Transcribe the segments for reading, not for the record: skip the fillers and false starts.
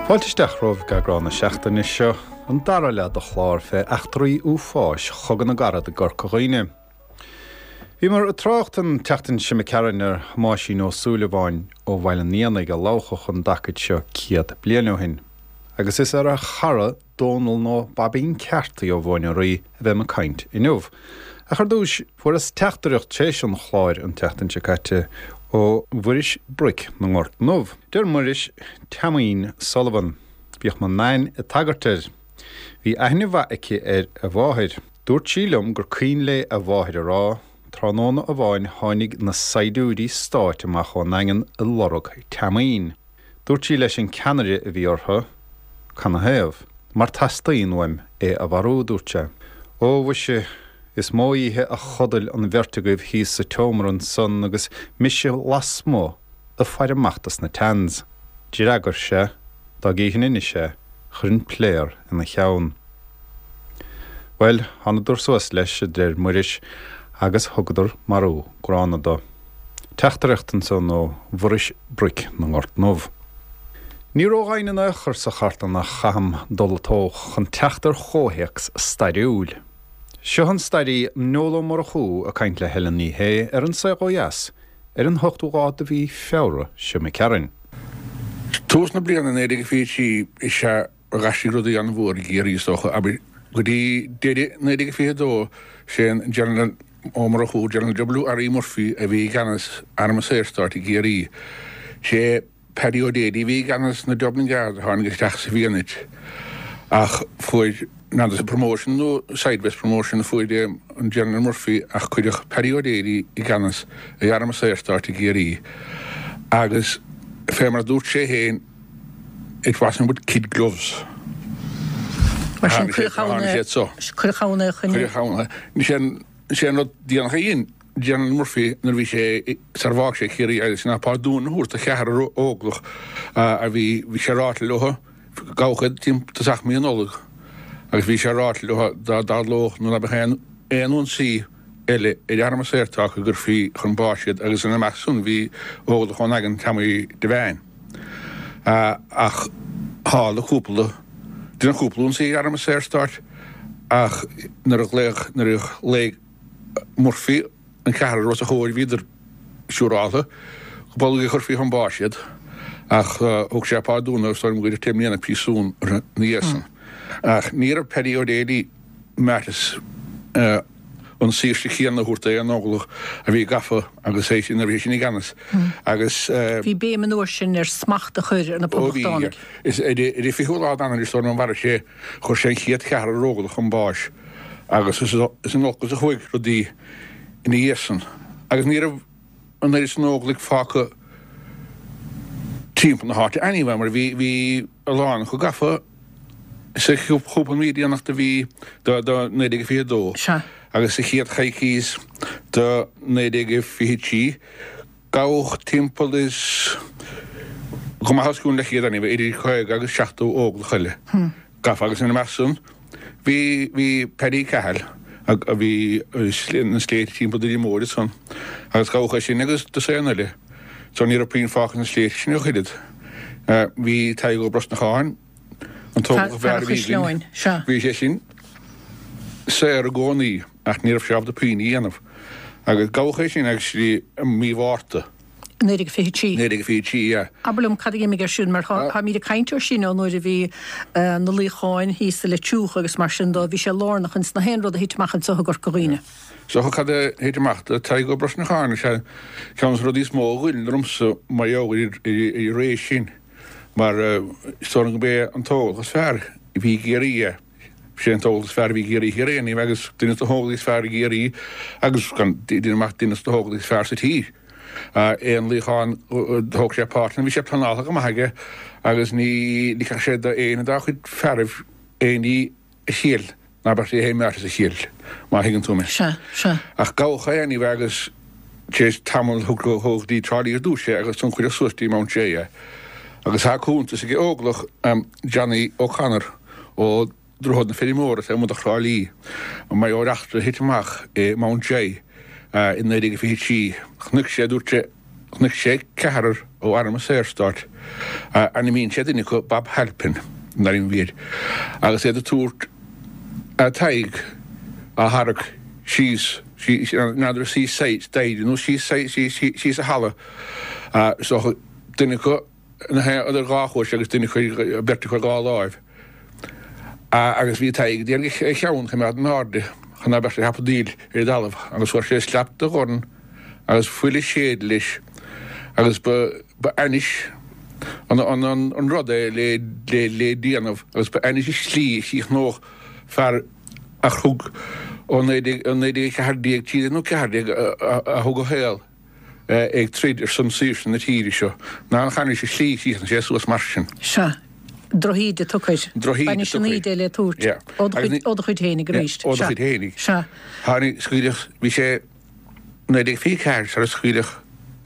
Fáilte isteach romhaibh go eagrán na seachtaine seo, an dara leath de chlár fé eachtraí uafáis Chogadh na gCarad i gCorca Dhuibhne. Bhíomar ag trácht an tseachtain seo imigh tharainn ar Thomáisín Ó Súilleabháin ó Bhaile an Éanaigh a labhchadh an dtacaid seo 100 bliain ó shin. Agus is ar a chara Dónal nó Baibín Ceartaí ó Mhóin an Rí a bheam ag caint inniu. Ach ar dtúis, fuaireas teachtaireacht tar éis an chláir an tseachtain seo caite ó Mhuiris Broic na nGort nDubh. Deir Muiris, Teaimín Sullivan. Bhíodh mo Nain ag tagairt air. Bhí aithne mhaith aici ar a mháthair. Dúirt sí liom gur cuimhin léi a mháthair a rá, tráthnóna amháin tháinig na saighdiúirí stáit amach ón nDaingean ag lorg Teaimín. Dúirt sí leis an ceannaire a bhí orthu, Canathaobh? Mar teastaíonn uaim é a mharú, dúirt sé. Ó, mhuise, is mó oíche a chodail an bheirt agaibh thíos sa tseomra ansan agus mise lasmuigh ag faire amach dos na Tans. D'fhreagair sé, dá gcífinn anois é, chuirfinn pléar ina cheann. Bhuel, thánadar suas leis, a deir Muiris, agus thugadar marú gránna do. Teachtaireacht ansan ó Mhuiris Broic na nGort nDubh. Ní ródhoimhin in aon chor sa chartlann a chaithim dul ag tóch chun teacht ar chomhthéacs stairiúil. Seo an stairí Noel Ó Murchú ag caint le Helen Ní Shé ar An Saol Ó Dheas ar an ochtú lá de mhí Feabhra seo imigh tharainn. Tús na bliana 1923 is ea D'aistrigh rudaí an-mhór i gCiarraí is dócha, abair, go dtí deireadh 1922, sé an General Ó Murchú, General W. R. E. Murphy, a bhí i gceannas Arm an Saorstáit i gCiarraí. Sé Paddy O'Daly a bhí i gceannas na Dublin Guards a tháinig isteach sa bhFianait ach fuair n'fheadar promotion nó sideways promotion a fuair an General Murphy ach cuireadh Paddy O'Daly i gceannas ar Arm an Saorstáit i gCiarraí agus fé mar a dúirt sé féin, It wasn't with kid gloves. Mar sin, cuireadh ann é. Cuireadh ann é chun. Cuireadh ann é. Sé an rud déanach a dhein General Murphy nuair a bhí sé, sar a bhfág sé Ciarraí agus ná pardún a thabhairt do cheathrar óglach a bhí, bhí sé ráite leo, gabhadh iad timpeall tosach mí Nollag agus bhí sé ráite leo dá dtarlódh nó dá mbeadh aon aon ionsaí eile ar Arm an Saorstáit go gcuirfí chun báis iad agus ina measc san bhí óglach ón nDaingean Tommy Devane. Ach tharla cúpla, deineadh cúpla ionsaí ar Arm an Saorstáit ach nuair a ghlaoigh, nuair a ghlaoigh Murphy an ceathrar os a chomhair bhíodar siúráltha go bolg a chuirfí chun báis iad ach thug sé pardún orthu is dóigh liom gur deich mbliana príosún orthu ina dhiaidh san. Ach ní raibh Paddy O'Daly meas an saoirse chéanna a thabhairt d'aon óglach a bhí gafa agus é sin, nuair a bhí sé sin i gceannas agus. Bhí béim an uair sin ar smacht a chur ar na Ó bhí. Poblachtánaigh. Is ar an 20ú lá d'Eanáir is dóigh liom a mharaigh sé, chuir sé an chéad cheathrar óglach chun báis agus is in olcas a chuaigh rudaí ina dhiaidh san agus ní raibh an oiread san óglaigh fágtha timpeall na háite anyway mar bhí, bhí a lán acu gafa. Sa chúpla mí déanach de mhí de 1922 agus sa chéad choicís de 1923, gabhadh timpeall is go maith os cionn leathchéad anyway, idir 50 agus 70 óglach eile gafa agus ina measc san bhí bhí Paddy Cahill a bhí sna sléibhte timpeall Doire Móir ansan agus gabhadh é sin agus dosaen eile so ní raibh puinn fágtha sna sléibhte sin ach oiread. Bhí Tadhg Ó Brosnacháin, an t-óglach ab Fear fhearr a bhí Chaisleáin, againn, sea. bhí sé sin saor i gcónaí ach ní raibh sé ábalta puinn a dhéanamh. Agus gabhadh é sin actually i mí Mhárta. 1923. 1923, yeah. Abair liom cad a d'imigh ar siúl mar táimid ag caint air sin ó nuair a bhí na luíocháin thíos sa Leitriúch agus mar sin dó, bhí sé lárnach ins na haon rud a thit amach anseo i gCorca Dhuibhne. So cad a thit amach do Tadhg Ó Brosnacháin is ea ceann de na rudaí is mó a ghoill ormsa mar gheall ar an ré sin mar is dóigh liom gurb é an t-óglach is fearr a bhí i gCiarraí é. Sé an t-óglach is fearr a bhí i gCiarraí Thiar é anyway agus duine de na hóglaigh is fearr i gCiarraí agus gan déanamh amach duine de na hóglaigh is fearr sa tír. Aon luíochán thóg sé páirt ann bhí sé pleanáilte go maith aige agus ní ligfeadh sé d'aon dá chuid fearaibh aon ní a thriail. Ná beadh sé féin meáite sa chill, má thuigeann tú mé. Sea, sea. Ach gabhadh é anyway agus tar éis tamaill tugadh go dtí Trá Lí ar dtús é agus ansan cuireadh suas dtí Mountjoy é. Agus tá cuntas ag Óglach Johnny O'Connor ó Droichead na Feirmeora taobh amuigh de Thrá Lí mar gheall ar eachtra a thit amach i Mountjoy i 1923. Chonaic sé, dúirt sé, Chonaic sé ceathrar ó Arm an Saorstáit, ainmníonn sé duine acu Bob Halpin, an ainm a bhí air, agus iad ag tabhairt Tadhg á tharrac síos, n'fheadar síos staighre nó síos síos an halla, so duine acu idir dhá chois agus duine acu, beirt acu ar dhá láimh. Agus bhí Tadhg ag iarraidh a cheann a choimeád in airde chun ná beadh sé ag hapadaíl ar an dtalamh agus fuair sé slap de dhorn agus fuil ag séideadh leis agus ba ba ainnis an an an rud é le le le déanamh agus ba ainnis an tslí a chríochnódh fear a thug ó 1914 13 nó 14 a thug a shaol ag troid ar son saoirse na tíre seo, ná nach ainnis an tslí a chríochnaigh sé suas mar sin. Sea. Drochíde tugtha air. Drochíde B'ainnis an tugtha air. íde le tabhairt. Yeah. Ó do Agus chuid, ní, ó do chuid fhéinig yeah, arís. ó do Sea. chuid fhéinig. Sea. Tháinig, scaoileadh, bhí sé 1924 sar a scaoileadh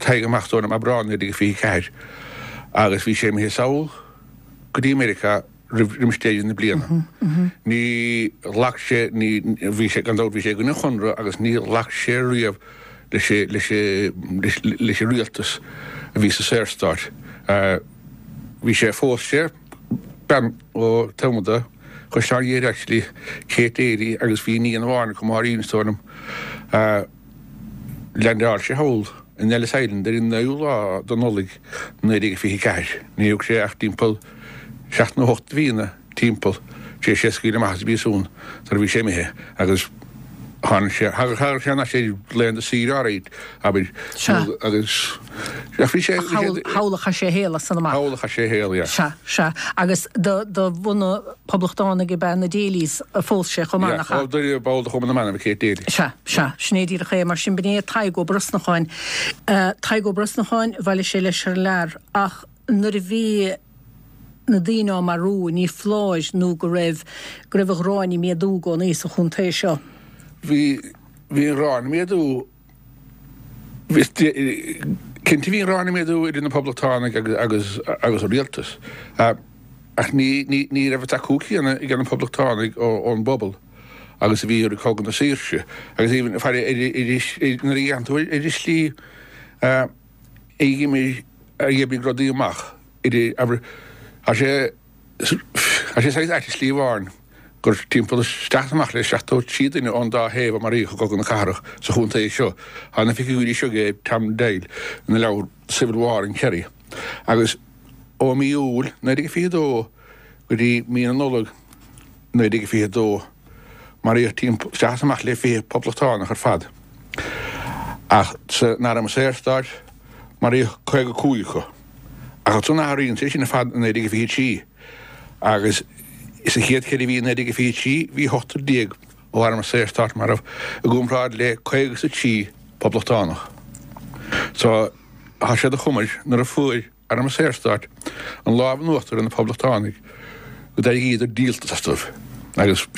Tadhg amach is dóigh liom, Aibreán 1924, agus bhí sé imithe sall go dtí Meiriceá roimh roimis deireadh na bliana. Ní ghlac sé, ní, bhí sé, gan dabht, bhí sé i gcoinne an Chonradh agus ní ghlac sé riamh leis, leis, leis, leis an rialtas a bhí sa Saorstát. Bhí sé, phós sé bean ó taobh amuigh de Chaisleán Ghaoth Dobhair actually, Kate Daly agus bhí iníon amháin acu, Máirín is dóigh liom. Leaindeáil sé thall in Ellis Island ar an 9ú lá de Nollaig 1924. Ní thug sé ach timpeall seacht nó hocht de mhíonna timpeall tar éis é a scaoileadh amach as an bpríosún sar a bhí sé imithe agus tháinig sé, thagadh sé thar n-ais ar laethanta saoire áirid, abair, Sea. agus ach bhí sé, Ach thall, thall a chaith sé a shaol as san amach. Thall a chaith sé a shaol, yeah. Sea, sea. Agus de, de bhunadh poblachtánaigh ab ea na Daly's a phós sé chomh maith, Yeah, nach ea? ó, de, ball de Chumann na mBan ab ea Kate Daly. Sea, sea. Sin é díreach é. Mar sin, b'in é Tadhg Ó Brosnacháin. Tadhg Ó Brosnacháin, bhailigh sé leis thar lear ach nuair a bhí na daoine á marú, ní foláir nó go raibh, go raibh an ghráin ag méadú i gcónaí sa chontae seo. Bhí, bhí an ghráin ag méadú. Bhí, cinnte bhí an ghráin ag méadú idir na Poblachtánaigh agus, agus an rialtas. Ach ní, ní, ní raibh an tacú céanna ag na Poblachtánaigh ón bpobal agus a bhí i rith Cogadh na Saoirse. Agus even, faire, ar, ar, nuair a dhéanann tú ar an slí a d'imigh, a d'oibrigh rudaí amach idir, abair, tá sé, tá sé saghas ait i slí amháin gur timpeall isteach is amach le 73 duine ón dá thaobh a maraíodh i gCogadh na Cathrach sa chontae seo. Tá na figiúirí seo ag Tom Doyle ina leabhar Civil War in Kerry. Agus ó mí Iúil 1922 go dtí mí na Nollag 1922 maraíodh timpeall isteach is amach le 20 poblachtánach ar fad. Ach san Arm Saorstáit maraíodh 55 acu. Ach ansan athraíonn sé sin ar fad i 1923 agus sa chéad cheithre mhí i 1923 bhí ochtar déag ó Arm an Saorstáit marbh i gcomparáid le 53 poblachtánach. So tá sé de chuma air nuair a fuair Arm an Saorstáit an lámh in uachtar ar na poblachtánaigh go d'éiríodar díoltas astu agus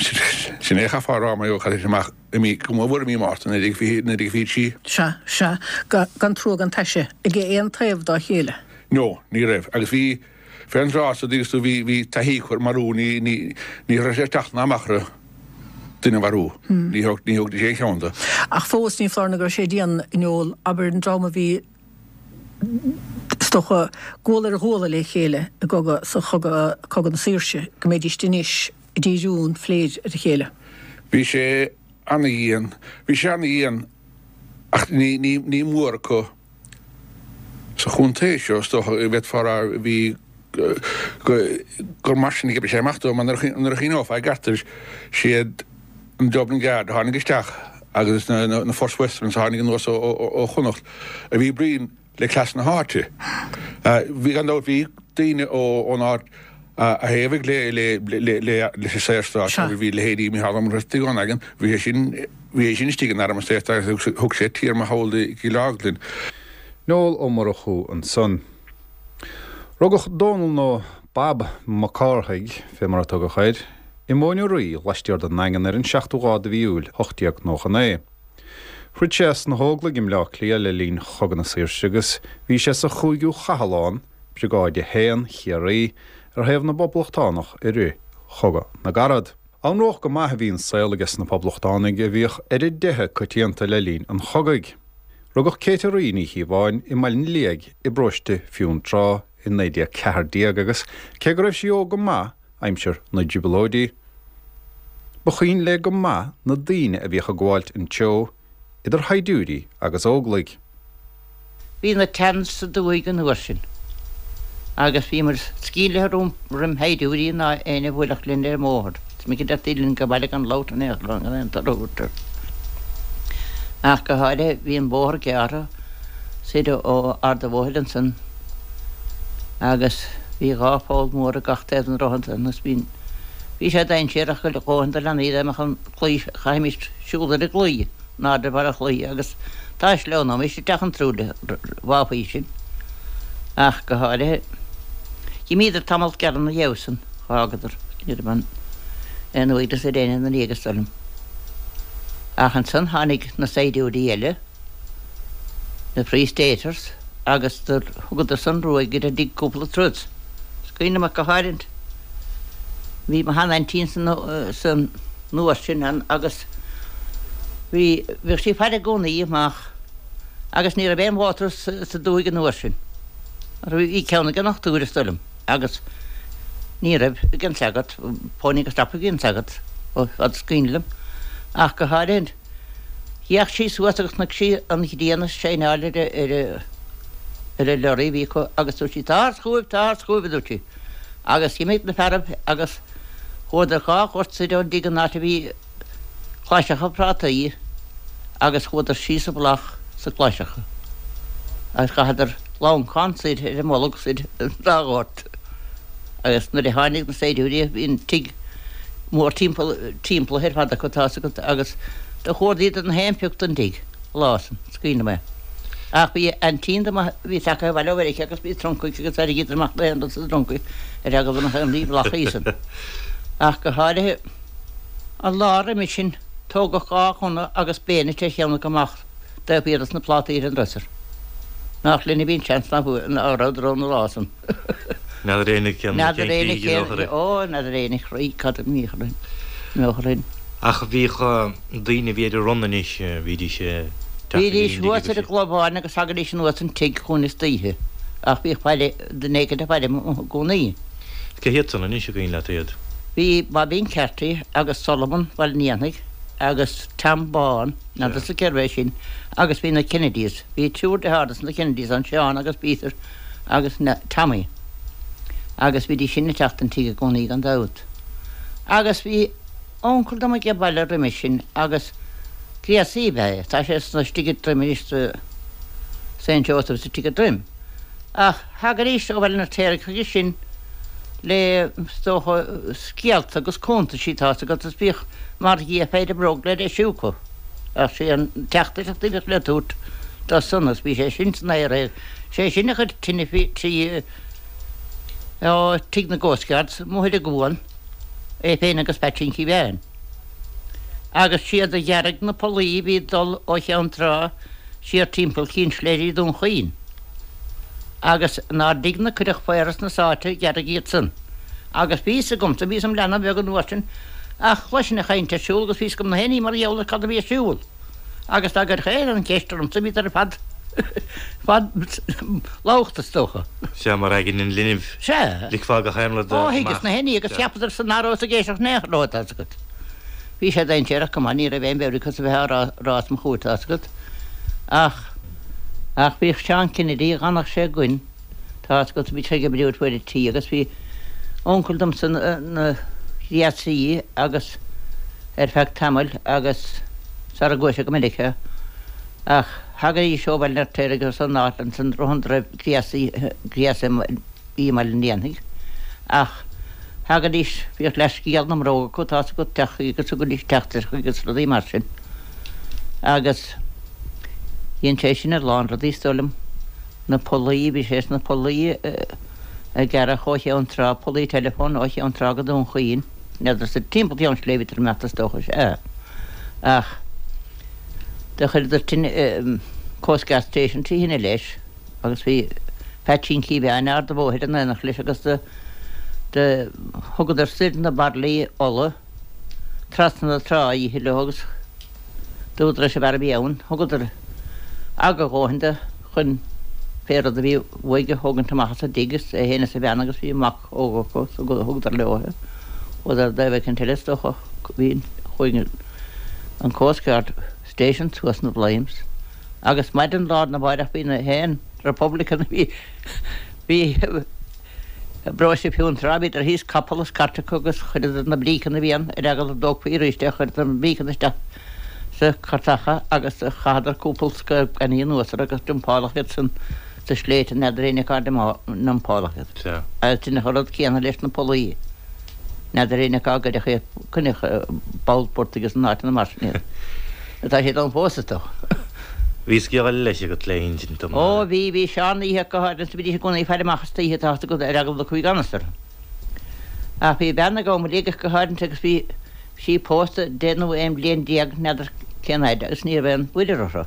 sin é a chaithfeá a rá mar gheall ar amach i mí, go mór mhór i mí Márta 1923. Sea, sea. Gan trua gan taise ag aon taobh dá chéile. No, ní raibh. Agus bhí, fén dtráth so, dtuigeann tú, bhí, bhí taithí acu ar marú, ní, ní, ní raibh sé ag teacht ná amach orthu duine a mharú. Ní thóg, ní thógfaidís aon cheann de. Ach fós, ní foláir nó go raibh sé dian, a Noel, abair, an dream a bhí, is dócha, guala ar ghuala le chéile i gcogadh, sa chogadh, Cogadh na Saoirse, go mbeidíst anois ag díriú an phléid ar a chéile. Bhí sé ana-dhian, bhí sé ana-dhian ach ní, ní, ní mór acu sa chontae seo, is dócha, bhféadfá a rá, bhí, go, gur mar sin a d'oibrigh sé amach dó, mar nuair a, nuair a chuimhneofá i gceart air, siad an Dublin Guard a tháinig isteach agus na, na, na First Westerns a tháinig anuas ó, ó, ó Chonnacht a bhí bréan le cleas na háite. Bhí, gan dabht, bhí daoine ón áit a thaobhaigh leis an Saorstát, bhí leithéidí Mícheál Ó Muircheartaigh ón Aigin, bhí sé sin, bhí sé sin istigh in Arm an Saorstáit agus thug sé téarma thall i gCill Orglan. Noel Ó Murchú ansan. Rugadh Dónall nó Bob Mac Cárthaigh, fé mar a tugadh air. i Móin Uraí laistiar den nDaingean ar an seachtú lá de mhí Iúil 1899. Throid sé sna hÓglaigh i mBleá Cliath le linn Chogadh na Saoirse agus bhí sé sa chúigiú Chathlán, Briogáid 1, Chiarraí, ar thaobh na bPoblachtánach i rith Chogadh na gCarad. Anróch go maith a bhí an saol aige sna Poblachtánaigh a bhíodh ar a dteitheadh coitianta le linn an chogaidh. Rugadh Kate Uraí Ní Chíobháin i mBaile an Liaigh i bparóiste Fionntrá i 1914 agus cé go raibh sí óg go maith aimsir na dTrioblóidí, ba chuimhin léi go maith na daoine a bhíodh ag gabháilt an treo, idir shaighdiúirí agus Óglaigh. Bhí na Tans sa dúthaigh an uair sin agus bhíomar sceimhlithe roim shaighdiúirí ná éinne a bhuailfeadh linn ar an mbóthar. Is minic a deirtí linn go baile gan labhairt in aon chor gan aon toradh a thabhairt. Ach go háirithe bhí an bóthar gearrtha soir ó Ard a' Bhóthair ansan agus bhí dhá pholl mhór ag gach taobh den droichead ansan agus bhí bhí sé dainséarach go dhóthain do leanaí dá mbeadh an claí chaithfimis siúl ar an gclaí in airde ar bharr an chlaí agus dá sleamhnóimis isteach an truailithe bháfaí sinn ach go háirithe. D'imíodar tamall gearr ina dhiaidh san, dh'fhágadar, ní raibh aon aon uaigneas ar éinne ina ndiaidh is dóigh liom. Ach ansan tháinig na saighdiúirí eile, na Free Staters, agus do thugadar san ruaig ar an dtigh cúpla turas. Is cuimhin liom ach go háirithe, bhí mo sheanaintín san san uair sin ann agus bhí, bhíodh sí ag faire i gcónaí amach agus ní raibh aon mhótar sa dúthaigh an uair sin. Bhí ceann ag an ndochtúir is dóigh liom agus ní raibh ag an sagart, pony agus strapa a bhí ag an sagart ó fad is cuimhin liom ach go háirithe D'fhéach sí suas agus chonaic sí an ghrian ag saighneáil ar ar an lorry a bhí acu agus dúirt sí, Táthar chugaibh, táthar chugaibh, a dúirt sí. Agus d'imigh na fearaibh agus chuadar dhá ghort soir ón dtigh an áit a bhí claiseacha prátaí agus chuadar síos i bhfolach sa claiseacha agus chaitheadar lancán soir ar a mbolg soir an dá ghort agus nuair a tháinig na saighdiúirí bhí an tigh mór timpeall timpeallaithe ar fad acu tá's agat agus do chuardaíodar na haon phioc den dtigh an lá san, is cuimhin liom é. Ach bhí aintín dom a bhí tagtha abhaile ó Mheiriceá agus bhí truncaí aici agus tharraingíodar amach na haon rud sa dtruncaí ar eagla go mbeadh aon ní i bhfolach í san. Ach go háirithe an lá roimis sin tógadh dhá ghunna agus bayonet ar cheann acu amach taobh thiar dos na plátaí ar an dresser. Nách linn a bhí an seans ná rabhadar ann an lá san. N'fheadar éinne cén N'fheadar éinne cén chaoi Ó, n'fheadar éinne chroí cad a mbíodh orainn, mbeadh orainn. Ach bhíodh daoine a bhí ar an run anois, bhídís ag teacht go dtí Bhídís thuas ar an gclobhán agus thagaidís anuas an tigh chugainn istoíche, ach bhíodh faire, duine éicint ag faire i gcónaí. Cé hiad san anois an cuimhin leat iad? Bhí Bobín Carty agus Solomon Bhaile an Éanaigh agus Tom Bán, n'fheadarsa cérbh é sin, agus bhí na Kennedys, bhí triúr dearthár dos na Kennedys ann, Seán agus Peter agus Tommy agus bhídís sin ag teacht an tigh i gcónaí gan dabht. Agus bhí uncail dom age baile roimis sin agus gréasaí ab ea é, tá sé sna istigh i dTroim anois sa Saint Joseph istigh i dTroim. Ach thagaidís ó Bhaile an Fheirtéaraigh chuige sin le is dócha scéalta agus cuntaisí tá's agat is bhíodh mar dhia péire bróg le deisiú acu. Ach sé an teachtaireacht a bhíodh le tabhairt dó san agus bhí sé sin san IRA Sé sin a chuir tine faoi tí ó tigh na gCoastguards amuigh ar an gcuan, é féin agus Peaitsín Kevane. Agus siad a ghearraigh na pollaí a bhí ag dul ó Cheann Trá siar timpeall Chinn Sléire Dún Chaoin. Agus inár dtigh-ne cuireadh faora sna sáite ghearraigh iad san. Agus bhí fhios agamsa, bhíos im leanbh beag an uair sin, ach chloisinn an chaint ar siúl agus bhí fhios agam na haon ní mar gheall ar cad a bhí ar siúl. Agus dá gcuirfeadh éinne an cheist ormsa bhíodar ar fad fad loghta is dócha. Sea, mar aigne an linbh. Sea. Ligfeá gach aon rud amach. Ó, thuigeas na haon ní agus cheapadar san ná rabhas ag éisteacht in aon chor leo, tá's agat. Bhí sé dainséarach go maith, ní raibh aon mheabhair acu a bheith á rá rá os mo chomhair, tá's agat. Ach, ach bhíodh Seán Kennedy, dh'fhanadh sé againn, tá's agat, bhí sé ag oibriú ar fuaid an tí agus bhí uncail domsa ina ghréasaí agus, ar feadh tamaill agus sara gcuaigh sé go Meiriceá ach thagaidís ó Bhaile an Fheirtéaraigh agus ón áit ansan Droim gréasaí gréasaí i mBaile an Éanaigh ach thagaidís bhíodh leathscéal na mbróg acu tá's agat teacht chuige agus thugaidís teachtaireacht chuige agus rudaí mar sin agus dhein sé sin a lán rudaí is dóigh liom na pollaí bhí sé sna pollaí a gearradh ó Cheann Trá pollaí teileafóin ó Cheann Trá go Dún Chaoin. N'fheadar sa timpeall Cheann Sléibhe bhíodar ag imeacht is dócha, sea. Ach do chuireadar tine, Coast Guard Station trí thine leis agus bhí Peaitsín Cíobháin Ard a' Bhóthair in éineacht leis agus do, do thugadar soir na bairillí ola trasna na trá oíche leo agus dúradar leis an bhfear a bhí ann, thugadar aga a dhóthain do chun pé rud a bhí uaidh a thógaint amach as an dtigh is é féin is a bhean agus bhí mac óg acu so thugadar leo é. Chuadar i dtaobh éicint eile is dócha bhí chuaigh an Coast Guard Station suas in flames agus maidin lá arna mháireach bhí na haon Republican a bhí bhí I bparóiste Fionntrá bhíodar thíos capall is cairt acu agus chuireadar na bríceanna a bhí ann ar eagla go dtógfaí arís é, chuireadar na bríceanna isteach sa cairteacha agus chaitheadar cúpla scaob gainimh anuas orthu agus dumpáladh iad san sa sléibhte n'fheadar éinne cá ndumpáladh iad. Agus deineadh an rud céanna leis na pollaí. N'fheadar éinne cá gcuireadh iad, cuireadh i bpoll portaigh is in áiteanna mar sin iad. Tá siad ann fós is dócha. Bhí scéal eile leis agat le hinsint dom. Ó bhí, bhí Seán oíche go háirithe is bhídís i gcónaí ag faire amach istoíche tá fhios agat ar eagla go dtiocfaí gan fhios orthu. Ach bhí bean ag Ó Muileaigh go háirithe agus bhí sí pósta deich nó 11 bliain n'fheadar cén fhaid agus ní raibh aon mhuirear orthu.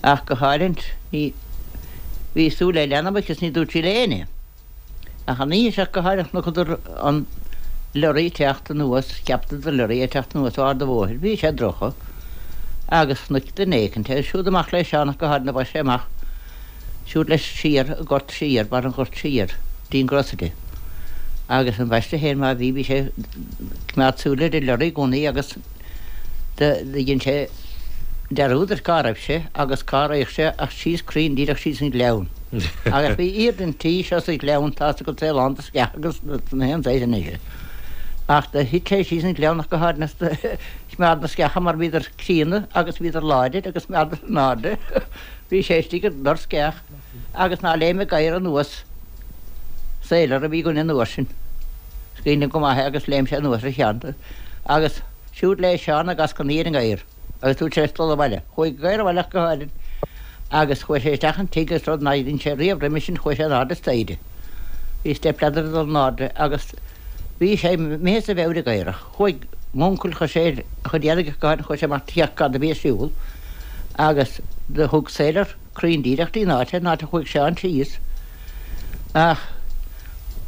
Ach go háirithe ní, bhí súil le leanbh aici is ní dúirt sí le éinne. Ach an oíche seo go háirithe chonacadar an lorry teacht anuas, cheapadar lorry ag teacht anuas ó Ard a' Bhóthair, bhí sé dorcha, agus chonaic duine éicint é, siúd amach le Seán ach go háirithe bhaist sé amach, siúd leis siar an gort siar, barr an ghoirt siar, dtí an grocery. Agus an bhaiste féin má bhí, bhí sé ag coimeád súil ar an lorry i gcónaí agus do dhein sé dearúd ar cá raibh sé agus cá raghadh sé ach síos cruinn díreach síos an gleann. Agus bhí iar den tí seo sa ghleann tá fhios agat é lán de sceacha agus na haon saghas anois. Ach do thit sé síos an gleann ach go háirithe is do choimeád na sceacha mar bhíodar críonna agus bhíodar láidir agus choimeádar in airde. Bhí sé istigh i ndor sceach agus ná léim an gadhar anuas Sailor a bhí againn an uair sin. Is cuimhin liom go maith é agus léim sé anuas ar a cheann. Agus siúd le Seán ag eascainí ar an ngadhar agus dúirt sé leis dul abhaile. Chuaigh an gadhar abhaile ach go háirithe agus chuaigh sé isteach an tigh agus rud nár dhein sé riamh roimhe sin chuaigh sé in airde staighre. Bhí step ladder ag dul in airde agus bhí sé imithe as a mheabhair an gadhar ach chuaigh m'uncail chuir sé a chuid éadaigh ach go háirithe chuaigh sé amach féach cad a bhí ar siúl agus do thug Sailor cruinn díreach dtí an áit, an áit a chuaigh Seán síos. Ach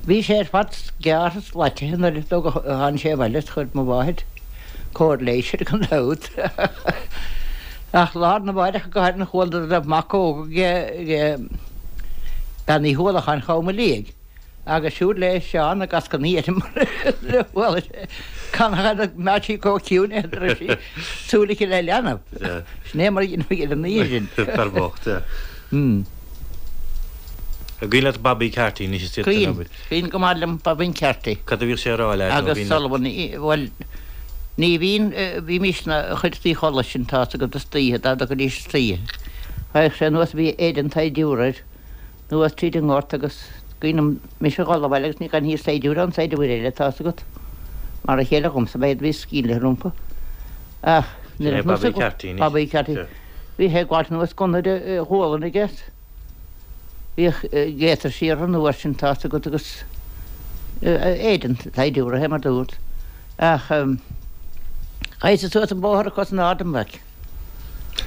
bhí sé ar fad gearrtha is glaitithe nuair a tháinig sé abhaile is chuir mo mháthair cóir leighis air gan dabht. Ach lá arna mháireach go háirithe chuala go raibh mac óg ag Bean Uí Uallacháin Chom Liaigh. Agus siúd le Seán ag eascainí air mar a chuala sé canathaobh nach mbeadh sí chomh ciúin é go raibh sí súil aici le leanbh. Sin é mar a dhéanfaí ar an oíche sin. Fear bocht, sea. An cuimhin leat Bobby Carty anois is iad san obair? Cuimhin go maith liom Bobby Carty. Cad a bhíodh sé a rá leat? Agus Sullivan, bhuel, ní bhíonn, bhímís ina chuid de chodladh sin, tá fhios agat, istoíche, dá dtiocfaidís istoíche. Thagadh sé anuas, bhí éide an tsaighdiúra air. anuas tríd an ngort agus cuimhin liom mise a dhul abhaile agus ní gan saighdiúir ann saighdiúir eile tá fhios agat. Mar a chéile dhomsa ba iad a bhí sceimhlithe rompu. Ach nuair a Bobby Carty anois. Bobby Carty. Bhí sé ag gabháilt anuas gunna ar a ghualainn aige. Bhíodh gaiters siar an uair sin tá fhios agat agus éide an tsaighdiúra é mar dúirt. Ach chaith suas an bóthar a cos in airde an bhaic.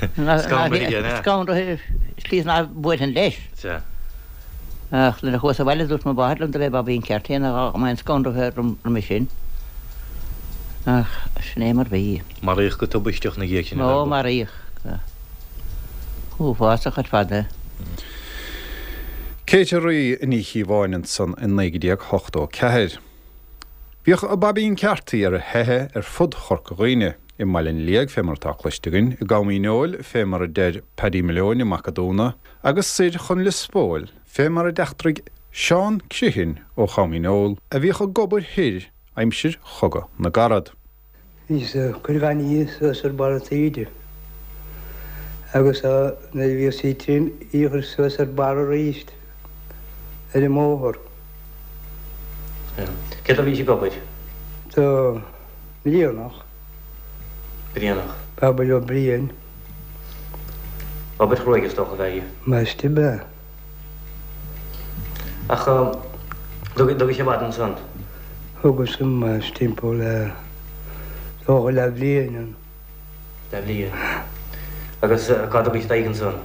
Scanraithe aige, an ea? Scanraithe, slí is ná buailfinn leis. Sea. Ach nuair a chuas abhaile dúirt mo mháthair liom do b'é Bobby an Carty nach mbeinn scanraithe roimhe sin. Ach sin é mar bhí. Maraíodh go tubaisteach ina dhiaidh sin é. Ó, maraíodh. Uafásach ar fad é. Katie Rí Ní Chíobháin ansan i 1984. Bhíodh Baibín Carty ar a theitheadh ar fud Chorca Dhuibhne. I mBaile an Liaigh, fé mar atá cloiste againn, i gCom Dhíneol, fé mar a deir Paddy Malone i Mac a' Dúna, agus soir chun Lios Póil, fé mar a d'eachtraigh Seán Criomhthain ó Chom Dhíneol, a bhíodh ag obair thoir aimsir Chogadh na gCarad. Bhíos ag cur gainimh suas ar barr an taoide agus nuair a bhíodh sí tirim í a chur suas ar barr arís ar an mbóthar. Cé dó a bhís ag obair? Do Bhrianach. Brianach. Babaí Ó Briain. Obair chruaidh is dócha ab ea í. Maiste ab ea. Ach dtugaidh sé i bhfad ansan? Thugas amas timpeall le dócha leathbhliain ann. Leathbhliain. Agus cá dtugaís d'aghaidh ansan?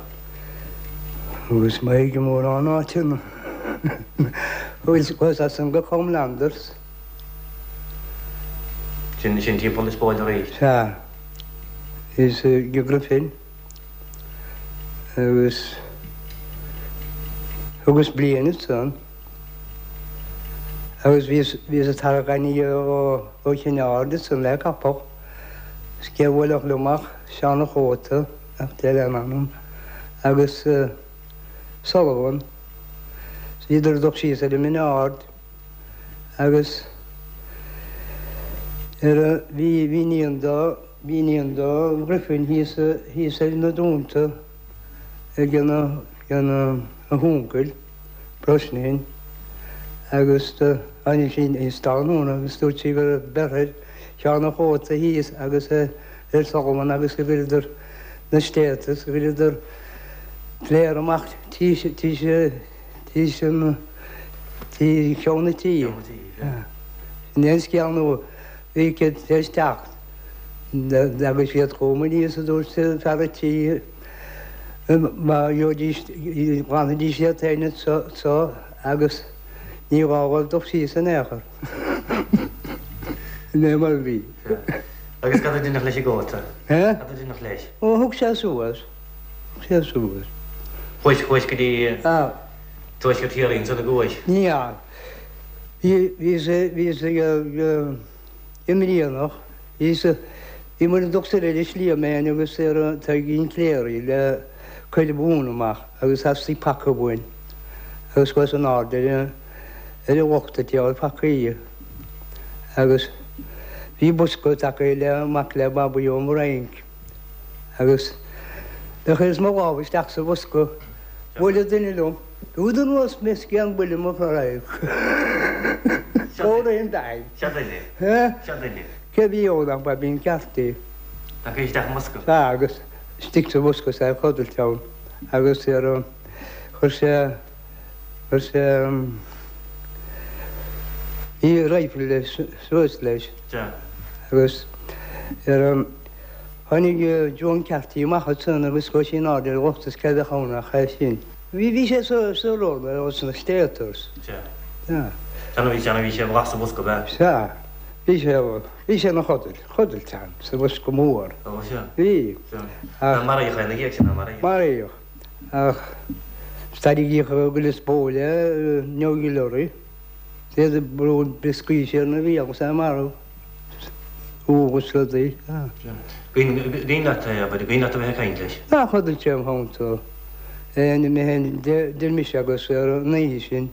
Thugas m'aghaidh i mórán áiteanna. Chuas as san go Comelanders. Sin, sin timpeall Lios Póil arís? Sea. Is go Griffin. Agus thugas bliain ansan. Agus bhíos, bhíos ag tarrac aniar ó, ó Chinn Aird ansan le capall. Is cé a bhuailfeadh liom ach Seán a' Chóta, nach deir lena anam, agus Sullivan. Is bhíodar ag dul síos ar an mBinn Ard agus ar a, bhí, bhí iníon do, bhí iníon do Ghriffin thíos, thíos ar na Dúnta ag a, ag a huncail. Brosnahan agus do tháinig sí níos tráthnóna agus dúirt sí go raibh beirthe ar Sheán a' Chóta thíos agus ar Sullivan agus go gcuireadar na stéata agus go gcuireadar pléar amach tís tís tís an tí cheann na tí. Sin é an scéal nó bhí siad tar éis teacht agus iad chugam aníos a dúirt fear a' tí. Má gheobhaidís, ghlanfaidís iad féin anso agus ní gá dhóibh dul síos in aon chor. Sin é mar a bhí. Agus cad a deineadh leis an gcóta? Cad a deineadh leis? Ó, thug sé suas. Thug sé suas. Chuais, chuais go dtí Tuaisceart Chiarraí ansan an gcuais? Ní fheadar. Bhí, bhíos, bhíos ag, i mBrianach. Bhíos, bhí muid ag dul soir ar an Sliabh mé fhéin agus ar Taidhgín Cléirigh le cuir mhóin amach agus theastaigh paca uainn agus chuas in airde ar an, ar an lochta ag fáil pacaí agus bhí bosca tagtha le mac le Babaí ón bhFrainc agus do chuireas mo lámh isteach sa bhosca, bhuail duine liom. Rud anuas mé scian buille mo chroí. Comhraí an daid. Seo duine. Seo duine. Cé bhí ann ach Baibín Carthy. Tagtha isteach i mbosca. Sea, agus istigh sa bhosca is é ag codailt ann agus ar chuir sé, chuir sé, bhí rifle suas leis. Sea. Agus ar an, tháinig Joan Carthy amach ansan agus chuaigh sí in airde ar an lochta is cé a bheadh ann ach é sin. Bhí, bhí sé sa, sa rud, sna States. Sea. Sea. Sea, bhí, sea, bhí sé i sa bhosca, ab ea? Sea. Bhí sé, bhí sé ina chodailt, chodailt ann, sa bhosca mór. Ó, sea. Bhí. Sea. Ach. Maraíodh é ina dhiaidh sin, ar maraíodh? Maraíodh. Ach, tarraingíodh go Lios Póil é, New Guillery. Iad ag brú brioscaí siar ina bhéal agus é marbh. Agus rudaí. Cuimhin leat é, abair, cuimhin leat a bheith ag caint leis? Ach chodail sé im theannta. Mé féin, deir mise agus ar an oíche sin,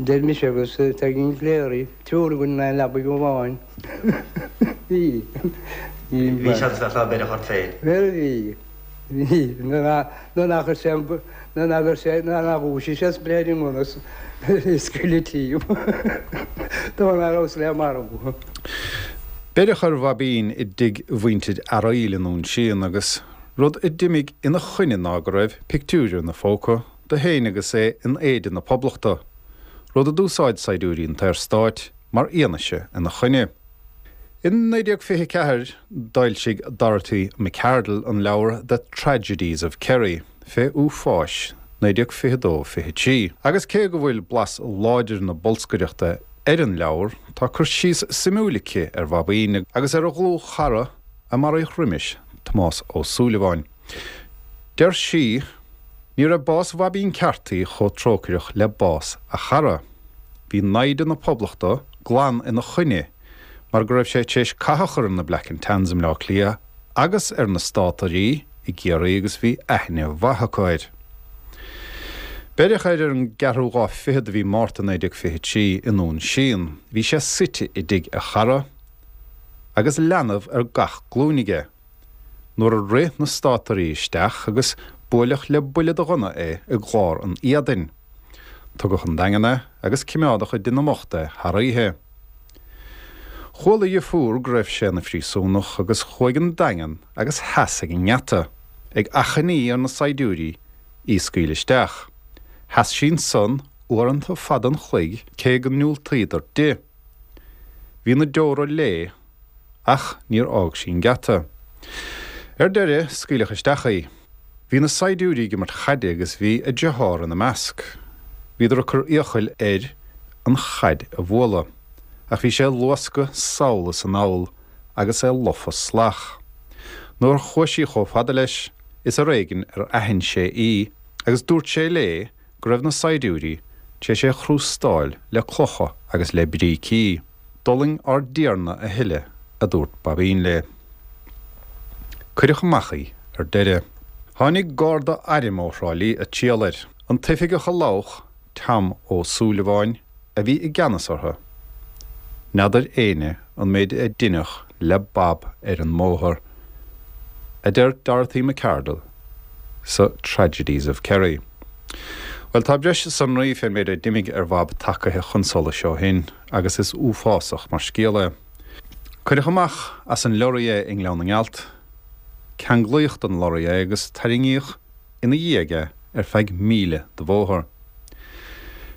deir mise agus Taidhgín Cléirigh, triúr againn in aon leabaidh amháin. Bhí. Bhí seans leat ná beireadh ort féin. Bhuel, bhí. Bhí. Nuair nach raibh sé, nuair nach raibh sé, nuair nach dhúisigh sé is breith ar an ngunna is scaoileadh tíom. Dóigh nach rabhas le marú. Beireadh ar Bhaibín i dtigh mhuintir Fhearaíl i nDún Síon agus rud a d'imigh ina choinne ná go raibh pictiúr ina phóca de féin agus é in éide na Poblachta, rud a d'úsáid saighdiúirí an tSaorstáit mar fhianaise ina choinne. In 1924 d'fhoilsigh Dorothy Macardle an leabhar The Tragedies of Kerry fé uafáis 1922 23. Agus cé go bhfuil blas láidir na bolscaireachta ar an leabhar, tá cur síos suimiúil aici ar Bhaibín agus ar a dhlúthchara a maraíodh roimis, Tomás Ó Súilleabháin. Deir sí, Ní raibh bás Bhaibín Carthy chomh trócaireach le bás a chara. Bhí naimhde na Poblachta glan ina choinne mar go raibh sé tar éis cath a chur ar na Black and Tans i mBleá Cliath agus ar na Státairí i gCiarraí agus bhí aithne mhaith acu air. Beireadh air ar an gceathrú lá fichead de mhí Márta 1923 i nDún Síon. Bhí sé suite i dtigh a chara agus leanbh ar gach glúin aige nuair a rith na Státairí isteach agus buaileadh le buille de ghunna é i gclár an éadain. Tugadh chun an Daingin é agus cimeádadh i dtigh na mbocht é thar oíche. Chuala a dheirfiúr go raibh sé ina phríosúnach agus chuaigh an Daingean agus sheas ag an ngeata, ag achainí ar na saighdiúirí í a scaoileadh isteach. Sheas sí ansan uaireanta fada an chloig cé go ndiúltaíodar di. Bhí na deora léi ach níor fhág sí an geata. Ar deireadh, scaoileadh isteach í. Bhí na saighdiúirí ag imirt chaide agus bhí a deartháir ina measc. Bhíodar ag cur iachaill air an chaid a bhualadh, ach bhí sé ag luascadh sall is anall agus é lofa salach. Nuair a chuaigh sí chomh fada leis, is ar éigin ar aithin sé í agus dúirt sé léi go raibh na saighdiúirí tar éis é a chrústáil le clocha agus le brící. D'fhulaing ár dTiarna a thuilleadh, a dúirt Baibín léi. Cuireadh amach í ar deireadh. Tháinig garda airm ó Thrá Lí ag triall air. An t-oifigeach a labhach, Tom Ó Súilleabháin, a bhí i gceannas orthu. N'fheadar éinne an méid a deineadh le Bab ar an mbóthar, a deir Dorothy Macardle sa Tragedies of Kerry. Bhuel, tá breis sonraí fén méid a d'imigh ar Bhab tagaithe chun solais ó shin, agus is uafásach mar scéal é. Cuireadh amach as an leoraí é i nGleann na nGealt, ceanglaíodh den lorraí é agus tarraingíodh ina dhiaidh é ar feadh míle de bhóthar.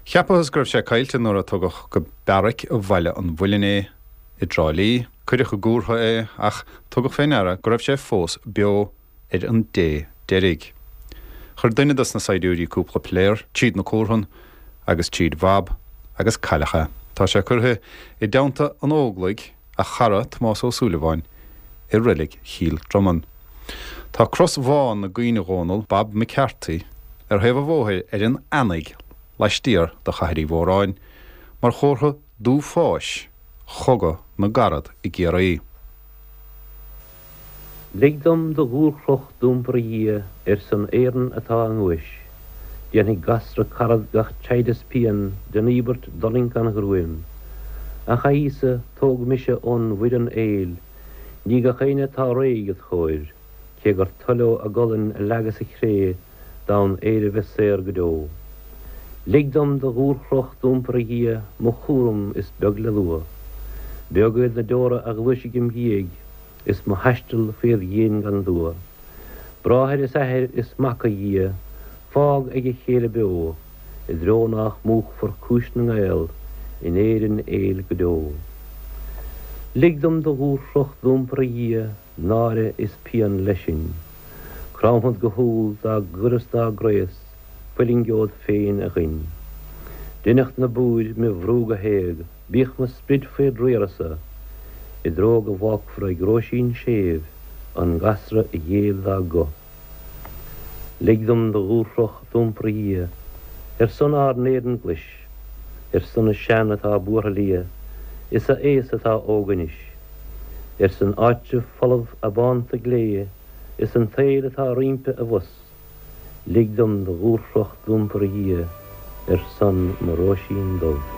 Cheapathas go raibh sé caillte nuair a tugadh go beairic Bhaile an Mhuilinn é i dTrá Lí. Cuireadh i gcúrtha é ach tugadh fé ndeara go raibh sé fós beo ar an dé deiridh. Chuir duine dos na saighdiúirí cúpla piléar tríd na cúrthann agus tríd Bhab agus cailleadh é. Tá sé curtha i dteannta an Óglaigh, a chara Tomás Ó Súilleabháin, i reilig Chill Dromann. Tá cros bhán i gcuimhne Dhónal Bab McCarthy ar thaobh an bhóthair ar an Eanaigh laistiar de Chathair Uí Mhóráin mar chomhartha d'uafáis Chogadh na gCarad i gCiarraí. Lig dom do dhúchroch d'iompar a Dhia ar son Éireann atá i nguais. Déanfaidh gasra carad gach teighd is pian den íobairt d'fhulaingt gan ghruaim. Ach a Íosa, tóg mise ón bhfoireann aoil, ní gach éinne atá réidh id chomhair, cé gur toil leo a gcolainn a leagadh sa chré d'fhonn Éire bheith saor go deo. Lig dom do dhúchroch d'iompar a Dhia, mo chúram is beag le lua. Beag iad na deora a ghluaisfidh im dhiaidh is mo thaisteal faoi dhíon gan dua. Bráthair is athair is mac a Dhia, fág ag a chéile beo, i dtreo nách múchfar cúis na nGael in Éirinn aoil go deo. Lig dom do dhúchroch d'iompar a Dhia, náire is pian leis sin. Cromfad go humhal dá gcur is dá gcraos, fuilingeod féin a ghoin. Deineadh na búir me bhrú go héag, bíodh mo sprid faoi d'riarasa, i dtreo go bhfágfar ag Róisín séimh an gasra a ghéill dá guth. Lig dom do dhúchroch d'iompar a Dhia, ar son ár n-Éireann glais, ar son na sean atá buartha liath, is a aos atá óg anois. Ar son áitreabh folamh abánta glé is an tsaoil atá roimpi abhus, lig dom do dhúchroch d'iompar a Dhia ar son mo Róisín Dubh.